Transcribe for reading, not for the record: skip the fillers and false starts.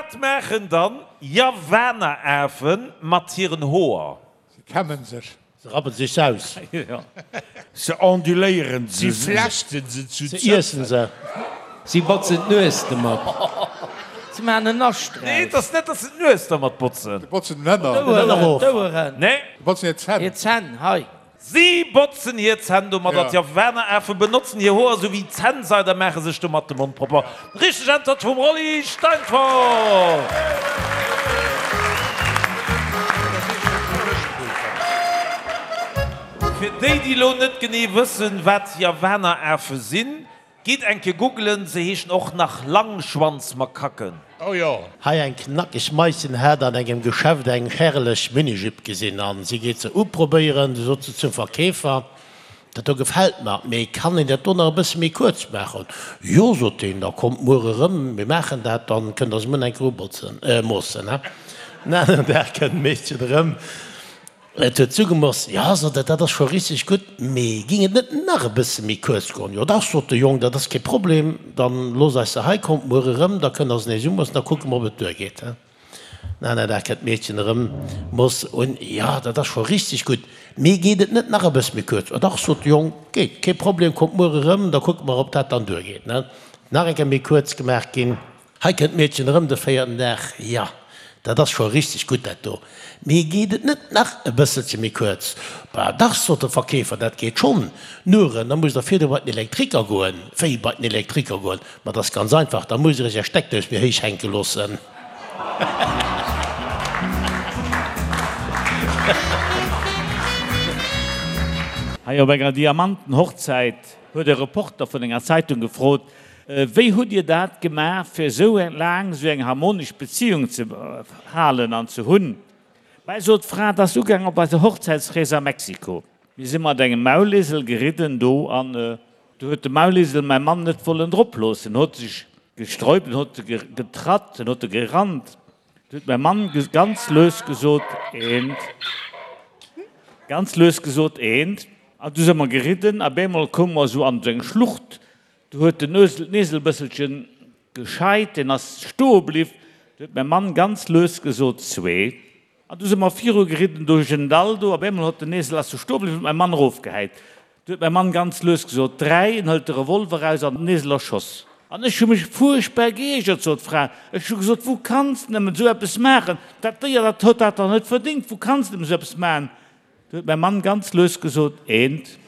Wat maachen dann Javanerafen mat hiren Hoer? Se kämmen sech. Se rappen sech se aus. Se onduléieren se. Si flechten se zu Se iessen se. Si botzen d'Nues domat. Se maachen en Nascht draus. Nee, et ass net, datt se d'Nues dermat botzen. Se botzen den Hënner. D'Oueren. D'Oueren. Nee. Se botzen hir Zänn. Hir Zänn, hei. Si botzen hir Zänn domadder. D'Javanerafe benotzen hir Hoer esou wéi Zännseid a maache sech domat de Mond propper. Richteg Äntwert vum Rolly Steinfort! Fir déi, déi elo net genee wëssen, wat Javanerafe sinn, Gitt eng Kéier googelen, se heeschen och nach Langschwanzmakaken. Oh jo. Hei eng knackeg Maischen hat an engem Geschäft eng herrlech Minijupe gesinn an si geet se uprobéieren. Du sot se zum Verkeefer, Dat do gefält mer, mee kann een dat do nach e bësse méi kuerz maachen? Jo, sot deen, da kommt muer erëm, mir maachen dat, dann kënnt der se muer nach eng Kéier ubotzen, moossen. En aneren Dag kënnt d'Meedchen erëm. Et huet zugemoss. Jo, sot et, dat ass scho richteg gutt, mee ging et net nach e bësse méi kuerz goen? Jo dach, sot de Jong, dat ass kee Problem, dann looss eis se hei, kommt muer erëm, da kënnt der se nees umoossen, da kucke mer, ob et duergeet. Den aner Dag kënnt d'Meedchen erëm, mooss un. Jo, dat ass scho richteg gutt, mee geet et net nach e bësse méi kuerz? Jo dach, sot de Jong, geet, kee Problem, kommt muer erëm, da kucke mer, ob dat dann duergeet. Nach eng Kéier méi kuerz gemaach ginn. Hei kënnt d'Meedchen erëm de véierten Dag. Jo, dat ass scho richteg gutt, dat do. Mee geet et net nach e bësselche méi kuerz? Bah dach, sot de Verkeefer, dat geet schonn. Nuren, da musst Der virdu bei den Elektriker goen. Wéi, bei den Elektriker goen? Ma dat ass ganz einfach, da musst Der Iech Är Steckdous méi héich hänke loossen. Hei op enger Diamantenhochzäit huet e Reporter vun enger Zeitung gefrot, Wéi hutt Dir dat gemaach, fir esou laang esou eng harmonesch Beziung ze halen an ze hunn? Bäi sot d'Fra, 't ass ugaang op eiser Hochzäitsrees a Mexiko. Mir si mat engem Maulesel geridden do an do huet de Maulesel mäi Mann net wollen drop loossen, en huet sech gesträubt, en huet getratt, en huet gerannt. Du huet mäi Mann ganz lues gesot, Eent. Ganz lues gesot, Eent. An du si mer geridden a bemol koume mer esou an esou eng Schlucht. Du huet den Ösel d'Nesel bësselchen gescheit, deen ass stoe bliw. Du huet mäi Mann ganz lues gesot, Zwee. An du si mer viru geridden duerch en Dall do. Op eemol hott den Esel ass du stoe bliw, huet mäi Mann erofgehäit. Du huet mäi Mann ganz lues gesot, Dräi. En hëlt de Revolver eraus an den Esel erschoss. An ech hu mech fuerchtbar geiergert, sot d'Fra. Ech hu gesot, Wou kanns de nëmmen esou eppes maachen? Dat Déier, dat huet dat dach net verdéngt. Wou kanns de nëmmen esou eppes maachen? Du huet mäi Mann ganz lues gesot, Eent.